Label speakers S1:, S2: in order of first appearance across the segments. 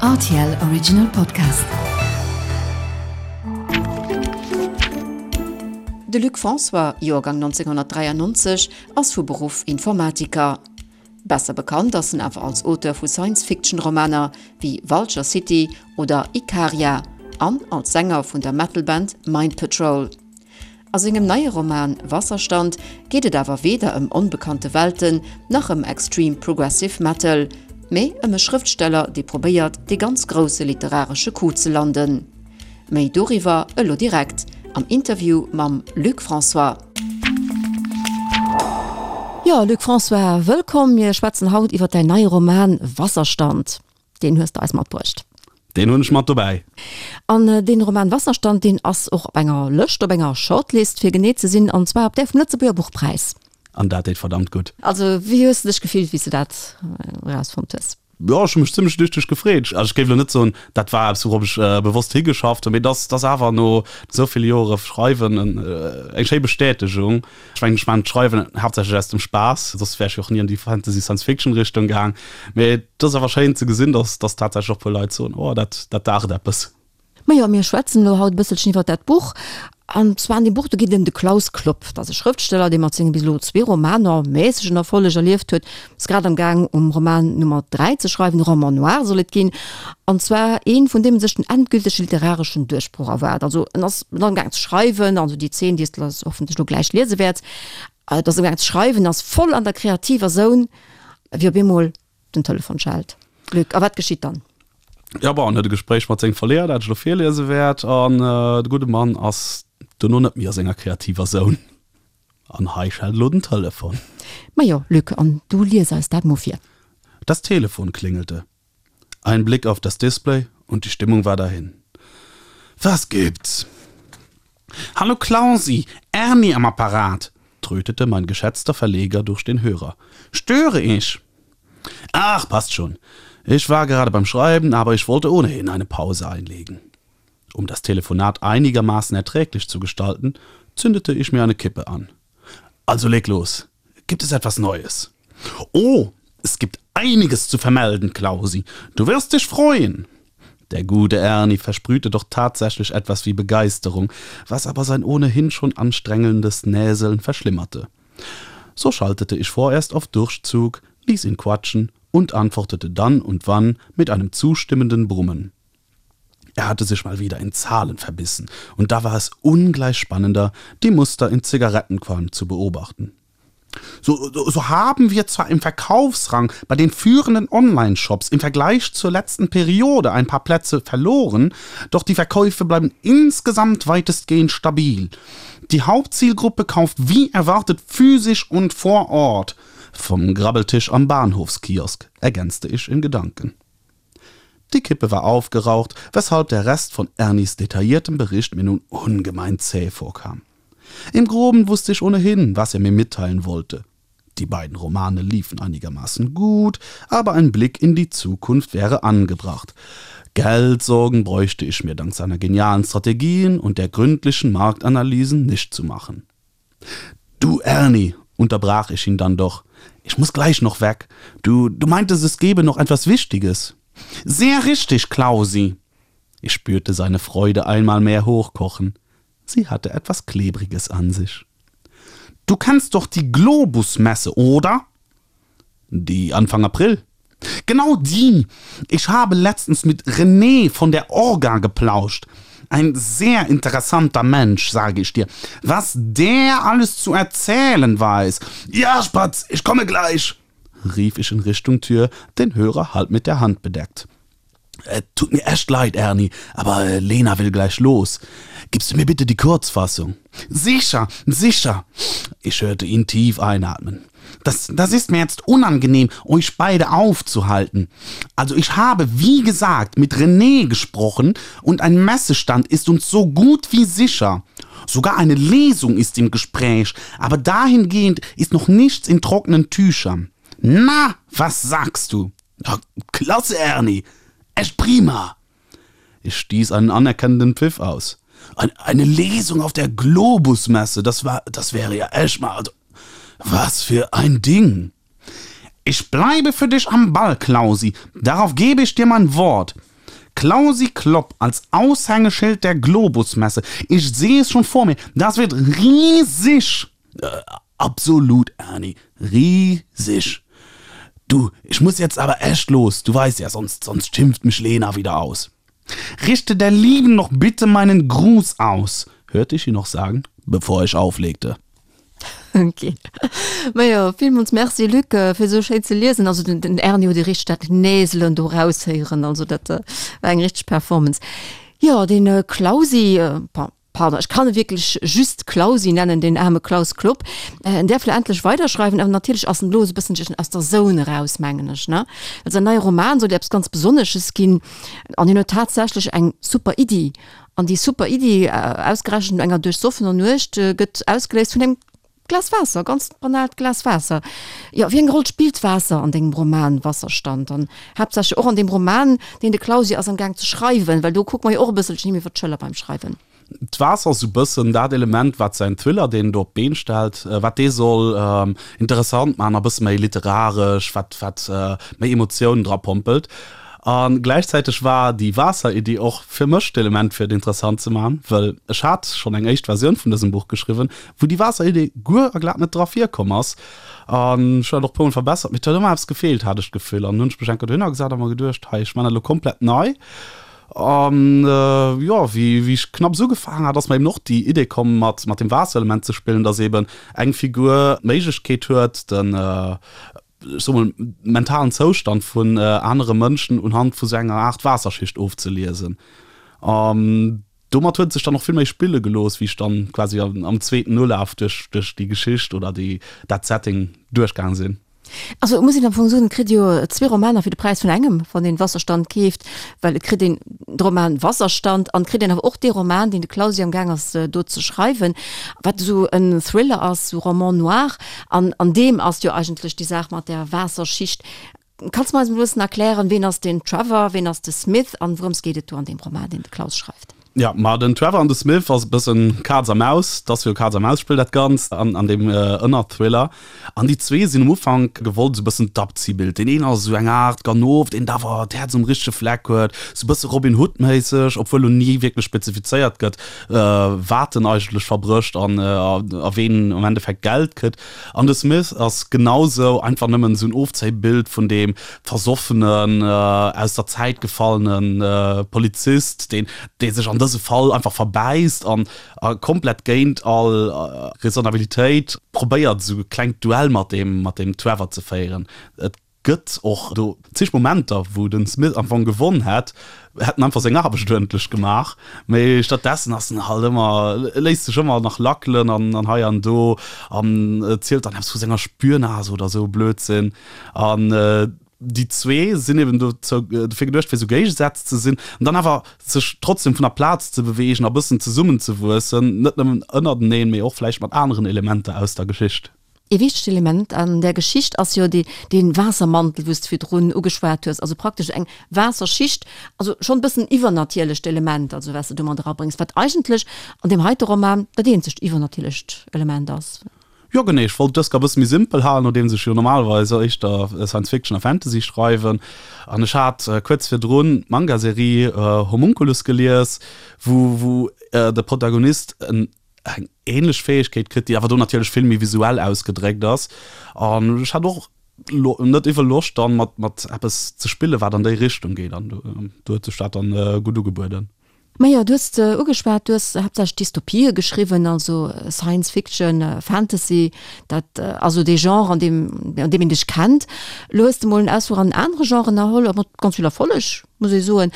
S1: Rtl Original Podcast. De Luc François, Joergang 1993, ass vu Beruff Informatiker. Besser bekannt ass en awer als Auteur vu Science-Fiction-Romaner wéi Vulture City oder Ikaria an als Sänger vun der Metal-Band Mind Patrol. A sengem neie Roman Wasserstand geet et awer weder ëm onbekannte Welten nach ëm Extreme Progressive Metal, mee ëm e Schrëftsteller, dee probéiert, dee ganz grousse literaresche Coup ze landen. Méi doriwwer elo direkt am Interview mam Luc François. Jo, Luc François, wëllkomm. Mir schwätzen haut iwwer däin neie Roman Wasserstand. Deen hues de eis matbruecht.
S2: Deen hunn ech mat dobäi.
S1: An deen Roman Wasserstand, deen ass och op enger Lëscht, op enger Shortlist fir genee ze sinn, an zwar op där vum Lëtzebuerger Buchpräis.
S2: An dat deet verdammt gutt.
S1: Also wéi hues de dech gefillt, wéi s de dat erausfonnt hues?
S2: Jo, ech hu mech zimmlech lüchteg gefreet. Also ech géif elo net soen, dat war eppes wourop ech bewosst higeschafft hunn, mee et ass, et ass awer no esou ville Jore Schreiwen eng schéi Bestätegung. Ech mengen, ech maachen d'Schreiwen haaptsächlech aus dem Spaass, soss wär ech jo och ni an déi Fantasy-Science-Fiction-Richtung gaang. Mee et ass awer schéin ze gesinn, dass, dass tatsächlech och e puer Leit soen, oh, dat, dat daacht eppes.
S1: Majo, mir schwätzen elo haut e bësselchen iwwer dat Buch. An zwar an deem Buch, do geet et ëm de Klaus Klopp. Dat ass e Schrëftsteller, dee mat senge bis elo zwee Romaner mässegen Erfolleg erlieft huet. Ass grad am Gaang um Roman Nummer 3 ze schreiwen, e Roman noir soll et ginn. An zwar een, vun deem en sech den endgültege literareschen Duerchbroch erwaart. Also en ass am Gaang ze schreiwen, also déi Zeen, déi s de hoffentlech elo gläich liese wäerts, et ass am Gaang ze schreiwen, ass voll an der kreativer Zone, wéi op eemol den Telefon schellt. Luc, a wat geschitt dann?
S2: Jo, bon, en huet e Gespréich mat sengem Verleeër, dat ech elo virliese wäert, an de gudde Mann ass dono net méi a senger kreativer Zone. An hei schellt elo den Telefon.
S1: Majo, Luc, an du lies eis dat mo vir.
S2: Das Telefon klingelte. Ein Blick auf das Display und die Stimmung war dahin. Was gibt's? Hallo Klausi, Ernie am Apparat, trötete mein geschätzter Verleger durch den Hörer. Störe ich? Ach, passt schon. Ich war gerade beim Schreiben, aber ich wollte ohnehin eine Pause einlegen. Um das Telefonat einigermaßen erträglich zu gestalten, zündete ich mir eine Kippe an. Also leg los. Gibt es etwas Neues? Oh, es gibt einiges zu vermelden, Klausi. Du wirst dich freuen. Der gute Ernie versprühte doch tatsächlich etwas wie Begeisterung, was aber sein ohnehin schon anstrengendes Näseln verschlimmerte. So schaltete ich vorerst auf Durchzug, ließ ihn quatschen und antwortete dann und wann mit einem zustimmenden Brummen. Er hatte sich mal wieder in Zahlen verbissen, und da war es ungleich spannender, die Muster in Zigarettenqualm zu beobachten. So, so, so haben wir zwar im Verkaufsrang bei den führenden Online-Shops im Vergleich zur letzten Periode ein paar Plätze verloren, doch die Verkäufe bleiben insgesamt weitestgehend stabil. Die Hauptzielgruppe kauft wie erwartet physisch und vor Ort. Vom Grabbeltisch am Bahnhofskiosk, ergänzte ich in Gedanken. Die Kippe war aufgeraucht, weshalb der Rest von Ernies detailliertem Bericht mir nun ungemein zäh vorkam. Im Groben wusste ich ohnehin, was er mir mitteilen wollte. Die beiden Romane liefen einigermaßen gut, aber ein Blick in die Zukunft wäre angebracht. Geldsorgen bräuchte ich mir dank seiner genialen Strategien und der gründlichen Marktanalysen nicht zu machen. Du Ernie, unterbrach ich ihn dann doch. Ich muss gleich noch weg. Du, du meintest, es gäbe noch etwas Wichtiges. Sehr richtig, Klausi. Ich spürte seine Freude einmal mehr hochkochen. Sie hatte etwas Klebriges an sich. Du kennst doch die Globusmesse, oder? Die Anfang April. Genau die! Ich habe letztens mit René von der Orga geplauscht. Ein sehr interessanter Mensch, sage ich dir. Was der alles zu erzählen weiß. Ja, Spatz, ich komme gleich, rief ich in Richtung Tür, den Hörer halb mit der Hand bedeckt. Äh, tut mir echt leid, Ernie, aber äh, Lena will gleich los. Gibst du mir bitte die Kurzfassung? Sicher, sicher. Ich hörte ihn tief einatmen. Das, das ist mir jetzt unangenehm, euch beide aufzuhalten. Also ich habe, wie gesagt, mit René gesprochen und ein Messestand ist uns so gut wie sicher. Sogar eine Lesung ist im Gespräch, aber dahingehend ist noch nichts in trockenen Tüchern. Na, was sagst du? Ja, klasse, Ernie! Echt prima! Ich stieß einen anerkennenden Pfiff aus. Eine Lesung auf der Globusmesse, das war, das wäre ja echt mal, also, was für ein Ding! Ich bleibe für dich am Ball, Klausi, darauf gebe ich dir mein Wort. Klausi Klopp als Aushängeschild der Globus-Messe. Ich sehe es schon vor mir, das wird riesig! Absolut, Erni, riesig! Du, ich muss jetzt aber echt los, du weißt ja, sonst, sonst schimpft mich Lena wieder aus. Richte der Lieben noch bitte meinen Gruß aus, hörte ich ihn noch sagen, bevor ich auflegte.
S1: Ok. Majo, villmools Merci Luc, fir esou schéin ze liesen. Also den, den Erni huet ee richteg dat Näselen do raushéieren, also dat war eng richteg Performance. Jo, den Klausi, bon, pardon, ech kann e wierklech just Klausi nennen, deen aarme Klaus Klopp, en däerf lo endlech weiderschreiwen, awer natierlech ass en elo esou e bësselchen aus der Zone eraus, mengen ech, ne? Well säin neie Roman soll jo eppes ganz Besonnesches ginn an hien huet tatsächlech eng super Iddi. An déi super Iddi, ausgerechent no enger duerchsoffener Nuecht, gëtt ausgeléist vun engem Glas Waasser, ganz banaalt Glas Waasser. Jo, wéi eng Roll spillt Waasser an dengem Roman Wasserstand an haaptsächlech och an deem Roman, deen de Klausi ass am Gaang ze schreiwen, well do kucke mer jo och e bësselchen him iwwer d'Schëller beim Schreiwen.
S2: D'Waasser ass esou bëssen dat Element, wat säin Thriller, deen en do op d'Been stellt, wat dee soll interessant maachen a bësse méi literaresch, wat, wat méi Emotiounen dra pompelt. A gläichzäiteg war déi Waasser-Iddi och fir mech d'Element, fir et interessant ze maachen, wëll ech hat schonn eng éischt Versioun vun dësem Buch geschriwwen, wou déi Waasser-Idee guer a glat net dra virkomm ass. An ech hunn dat och e puermol verbessert, mee et huet ëmmer eppes gefeelt, hat ech d'Gefill. An hunn ech mech eng Kéier dohinner gesat a mer geduecht, hei, ech man dat elo komplett nei. An jo, wéi wéi ech knapps ugefaangen hat, ass mer eben och déi Idee komm, mat mat dem Waasserelement ze spillen, dass eben eng Figur d'Méiglechkeet huet, den, ech soe mol, mentalen Zoustand vun anere Mënschen unhand vu sou enger Aart Waasserschicht ofzeliesen. An Domat huet et sech dann och vill méi spille gelooss, wéi ech dann quasi am zweeten Ulaf duerch duerch déi Geschicht oder déi dat Setting duerchgaang sinn.
S1: Also et muss een am Fong soen, et kritt ee jo zwee Romaner fir de Präis vun engem, wann een Wasserstand keeft, well et kritt een de Roman Wasserstand an et kritt een awer och dee Roman, deen de Klausi am Gaang ass do ze schreiwen, wat esou en Thriller ass, esou Roman noir an an deem ass jo eigentlech déi Saach mat där Waasserschicht. Kanns de mer eis emol e bëssen erklären, ween ass den Trevor, ween ass de Smith an wourëms geet et do an deem Roman, deen de Klaus schreift?
S2: Jo, ma den Trevor an de Smith ass e bëssen Kaz a Maus, 't ass jo Kaz a Maus Spill dat Ganzt an an deem Ënnerthriller. An déi zwee sinn um Ufank gewollt esou e bëssen d'Abziehbild. Deen een ass esou eng Aart Ganof, deen awer d'Häerz um richtege Fleck huet, esou e bësse Robin Hood méisseg, obwuel lo ni wierklech spezifizéiert gëtt, wat en eigentlech verbrécht an a ween am Endeffekt Geld kritt. An de Smith ass genausou einfach nëmmen esou en Ofzéibild vun deem versoffenen, aus der Zäit gefallene Polizist, deen, dee sech an dëse Fall einfach verbäisst an a komplett géint all Raisonnabilitéit probéiert, esou e klengt Duell mat deem, mat deem Trevor ze féieren. Et gëtt och do zeg Momenter, wou de Smith am Fong gewonn hätt, hätt en einfach seng Aarbecht uerdentlech gemaach, mee stattdessen ass en halt ëmmer, léisst sech ëmmer nach lackelen an an hei an do an zielt dann eppes vu senger Spürnase oder esou e Blödsinn. An déi zwee sinn eben dozou, dofir geduecht, fir esou Géigesätz ze sinn an dann awer sech trotzdem vun der Plaz ze beweegen a bëssen zesummenzewuessen, net nëmmen ënnerteneen, mee och vläicht mat aneren Elementer aus der Geschicht.
S1: Ee wichtegt Element an där Geschicht ass jo dee Waassermantel, wou s de virdrun ugeschwat hues, also praktesch eng Waasserschicht, also schonn e bëssen iwwernatierlecht Element, also wat s de do mat erabréngs, wat eigentlech an deem heite Roman dat eenzegt iwwernatierlecht Element ass.
S2: Jo genee, ech wollt dëst e bësse méi simpel halen, nodeems ech jo normalerweis éischter Science Fiction a Fantasy schreiwen. An ech hat kuerz virdrun d'Manga-Serie Homunculus gelies, wou wou de Protagonist en eng ähnlech Fähegkeet kritt, déi awer do natierlech vill méi visuell ausgedréckt ass. An ech hat och net iwwel Loscht dann mat mat eppes ze spillen, wat an déi Richtung geet an do huet sech dat dann gutt ugebueden.
S1: Majo, du hues ugeschwat, du hues haaptsächlech Dystopië geschriwwen, also Science Fiction, Fantasy, dat ass esou dee Genre, an deem an deem een dech kennt. Elo hues de mol en Ausfluch an en anere Genre ënnerholl, a mat ganz vill Erfolleg, muss ee soen.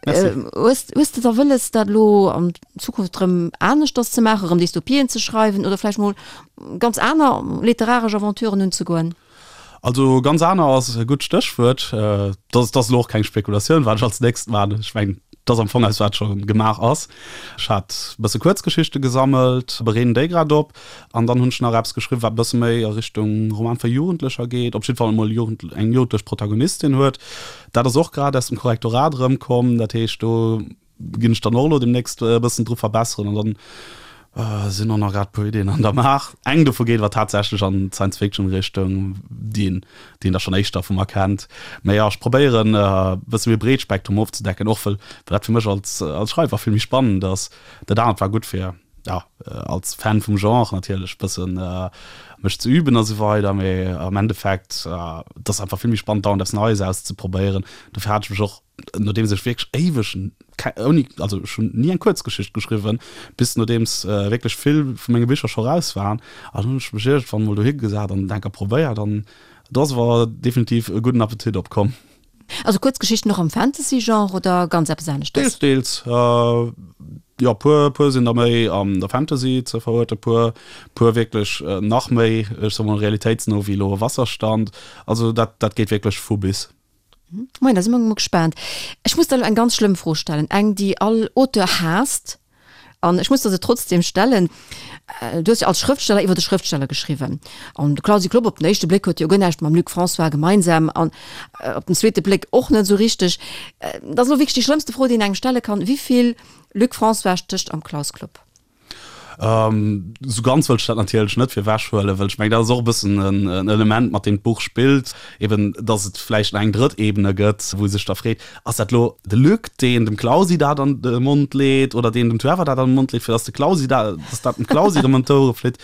S1: Merci. Hues hues de da wëlles, dat elo an Zukunft erëm aneschters ze maachen, erëm Dystopien ze schreiwen oder vläicht mol ganz aner literaresch Aventuren unzegoen?
S2: Also ganz aner ass e gutt Stéchwuert. Dat ass elo och keng Spekulatioun, wat ech als nächst maachen. Ech mengen, dat ass am Fong eppes, wat scho gemaach ass. Ech hat e bësse Kuerzgeschichte gesammelt, bereeden déi grad op an dann hunn ech nach eppes geschriwwen, wat e bësse méi a Richtung Roman fir Jugendlecher geet, op jidde Fall emol eng jugendlech Protagonistin huet. Dat ass och grad aus dem Korrektorat erëmkomm. Dat heescht, do ginn ech dann och elo demnächst e bëssen dru verbesseren an dann. Sinn och nach grad puer Iddien an der Maach. Eng dovu geet awer tatsächlech an d'Science-Fiction-Richtung, déi een, déi een da schonn éischter vu mer kennt. Mä jo, ech probéieren e bësse méi breet Spektrum ofzedecken, och well dat fir mech als, als Schreiwer vill méi spannend ass. Dat anert war gutt fir, jo, als Fan vum Genre natierlech bëssen mech ze üben a sou weider, mee am Endeffekt, et ass einfach vill méi spannend dauernd eppes Neies auszeprobéieren. Dofir hat ech mech och nodeems ech wierklech éiweg ouni, also ech hunn ni eng Kuerzgeschicht geschriwwen, bis nodeems wierklech vill vu menge Bicher scho raus waren, an hunn ech mech iergendwann emol dohi gesat an et enker probéiert an do ass awer definitiv e gudden Appetit opkomm.
S1: Also Kuerzgeschichten och am Fantasy-Genre oder ganz eppes aneschtes?
S2: Deels, deels. Jo, puer, puer sinn der méi an der Fantasy ze veruerten, puer, puer wierklech nach méi, ech soe mol, realitéitsno wéi elo Wasserstand. Also dat, dat geet wierklech vu bis.
S1: Moien, da si mer mol gespaant. Ech muss der elo eng ganz schlëmm Fro stellen, eng, déi all Auteur haasst, an ech muss der se trotzdem stellen. Du hues jo als Schrëftsteller iwwer de Schrëftsteller geschriwwen, an de Clausi Klopp op den éischte Bléck huet jo guer näischt mam Luc François gemeinsam, an op den zweete Bléck och net esou richteg. Dat ass elo wierklech déi schlëmmste Fro, déi een engem stelle kann, Wéi vill Luc François stécht am Klaus Klopp?
S2: Esou ganz wëll ech dat natierlech net fir ewech huelen, well ech mengen, dat ass och e bëssen en Element, mat deem d'Buch spillt, eben datt et vläicht nach eng drëtt Ebene gëtt, wou ee sech da freet, Ass dat elo de Luc, deen dem Clausi dat an de Mond leet oder deen dem Trevor dat an de Mond leet, fir datt de Clausi dat, datt dat dem Clausi erëm ëm d'Ouere flitt?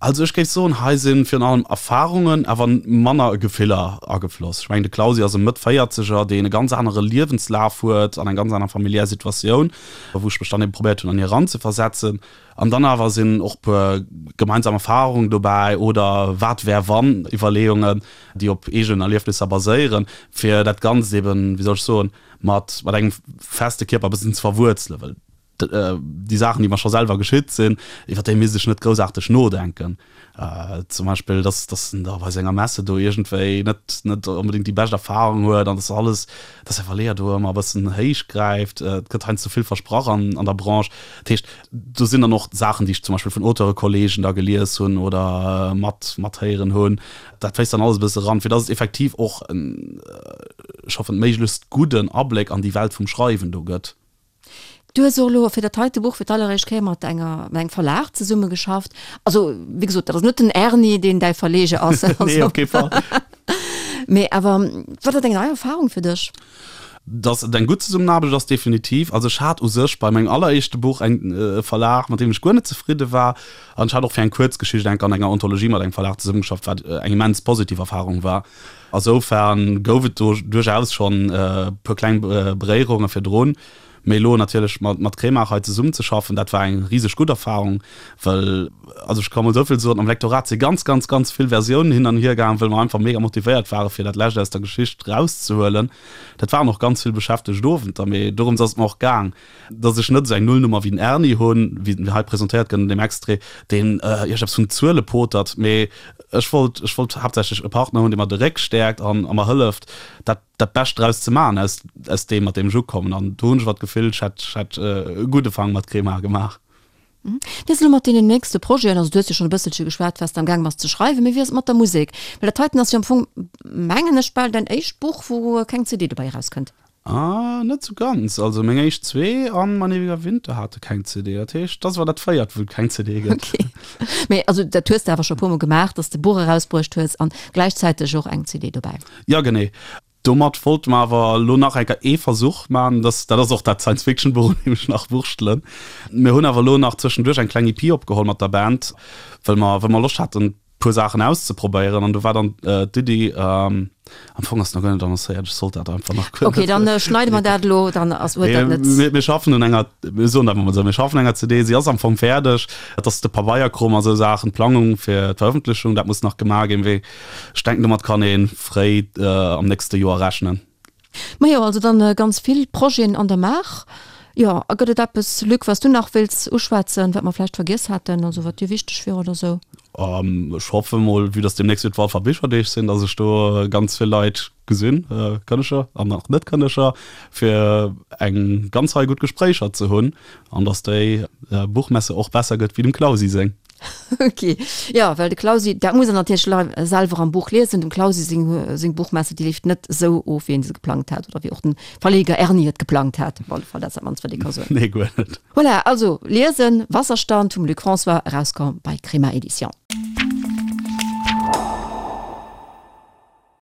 S2: Also ech géif soen, hei si virun allem Erfarungen, awer manner Gefiller agefloss. Ech mengen, de Clausi ass e Mëtt-Véierzeger, deen e ganz anere Liewenslaf huet an eng ganz aner familiär Situatioun, wou ech mech dann ebe probéiert hunn an hie eranzeversetzen. An dann awer sinn och puer gemeinsam Erfarungen dobäi oder wat wär wann Iwwerleeungen, déi op eegenen Erliefnisser baséieren, fir dat Ganzt eben, wéi soll ech soen, mat engem feste Kierper e bëssen ze verwuerzelen. Well déi Saachen, déi mer scho selwer geschitt sinn, iwwer déi misst ech net groussaarteg nodenken. Zum Beispill, dass, dass en da bei senger Messe do iergendwéi net, net onbedéngt déi bescht Erfarung huet an dass alles, dass säi Verleeër do ëmmer e bëssen héich gräift. Et gëtt heiansdo vill versprach an, an der Branche. Dat heescht, do sinn dann och Saachen, déi ech zum Beispill vun Auteure-Kolleegen da gelies hunn oder mat, mathéieren hunn. Dat fléisst dann alles e bësse eran, fir dass et effektiv och en, ech hoffen, méiglechst gudden Abléck an déi Welt vum Schreiwen do gëtt.
S1: Du hues och elo fir dat heite Buch fir d'alleréischt Kéier mat enger, mat engem Verlag zesummegeschafft. Also, wéi gesot, dat ass net den Erni, deen däi Verleger ass.
S2: Nee, op kee Fall.
S1: Mee awer, war dat eng nei Erfarung fir dech?
S2: Dass et eng gutt Zesummenaarbecht ass, definitiv. Also ech hat u sech bei mengem alleréischte Buch eng e Verlag, mat deem ech guer net zefridde war. An ech hat och fir eng Kuerzgeschicht enk an enger Anthologie mat engem Verlag zesummegeschafft, wat eng immens positiv Erfarung war. Asoufern gouf et do duerchaus schonn e puer kleng Beréierunge virdrun. Mee elo natierlech mat Kremart hei zesummenzeschaffen, dat war eng riseg gutt Erfarung, well, also ech ka mol esou vill soen, am Lektorat si ganz, ganz, ganz vill Versiounen hin an hier gaangen, well mer einfach mega motivéiert ware fir dat Lescht aus der Geschicht erauszehuelen. Dat waren och ganz vill beschäftegt Owenter, mee dorëms ass et mer och gaang. Dass ech net esou eng Nullnummer wéi den Erni hunn, wéi en hei presentéiert gëtt an deem Extrait, deen iergendepps vun Zuele potert, mee ech wollt, ech wollt haaptsächlech e Partner hunn, dee mer de Réck stäerkt an a mer hëlleft, dat, dat Bescht draus ze maachen aus, aus deem, mat deem ech ukommen. An do hunn ech awer d'Gefill, ech hätt, ech hätt e gudde Fang mat Crema gemaach.
S1: Wéi ass et elo mat deenen nächste Projeten? Also du hues jo schonn e bësselche geschwat, wat s de am gaang bass ze schreiwen, mee wéi ass et mat der Musek? Well dat heiten ass jo am Fong, mengen ech, bal däin éischt Buch, wou keng CD dobäi erauskënnt.
S2: Ah, net sou ganz. Also meng éischt zwee an Mein ewiger Winter hate keng CD. Dat heescht, dat ass awer dat véiert, wou et keng CD gëtt.
S1: Okay. Mee also dat hues de awer scho e puermol gemaach, dass de Buch erausbruecht hues an gläichzäiteg och eng CD dobäi.
S2: Jo, genee. Domat wollte mer awer elo nach eng Kéier ee Versuch maachen. Dat, dat ass och dat Science-Fiction-Buch, un deem ech nach wurschtelen. Mir hunn awer elo nach zwëschenduerch eng kleng EP opgeholl mat der Band, well mer, well mer Loscht haten, puer Saachen auszeprobéieren an do war dann d'Iddi, am Fong ass nach guer net annoncéiert, ech sollt dat einfach nach
S1: guer net. Ok, dann schneide mer dat elo, dann ass huet dat
S2: net. Mir schaffen un enger, mir soen dat emol esou, mir schaffen un enger CD, si ass am Fong fäerdeg, et ass de Pabeierkrom a sou Saachen, d'Plangung fir d'Verëffentlechung, dat muss nach gemaach ginn, mee ech denken domat kann ee fréi am nächste Joer rechnen.
S1: Majo, also dann ganz vill Projeten an der Maach. Jo, a gëtt et eppes, Luc, wat s du nach wéilts uschwätzen, wat mer vläicht vergiess haten, also wat dir wichteg wier oder sou?
S2: Ech hoffe mol, vue dass deemnächst jo d'Walfer Bicherdeeg sinn, dass ech do ganz vill Leit gesinn, Kënneger an och Net-Kënneger, fir eng ganz Rei gutt Gespréicher ze hunn an dass déi Buchmesse och besser gëtt wéi dem Clausi seng.
S1: Ok, jo, well de Clausi, dat muss en natierlech selwer am Buch liesen, dem Clausi seng, seng Buchmesse, déi leeft net esou of, wéi en se geplangt hat oder wéi och den Verleger Erni et geplangt hat, op alle Fall, dat ass dat mannst, wat ee ka soen.
S2: Nee, guer net.
S1: Voilà, also liesen, Wasserstand vum Luc François, erauskomm bei Crema Edition.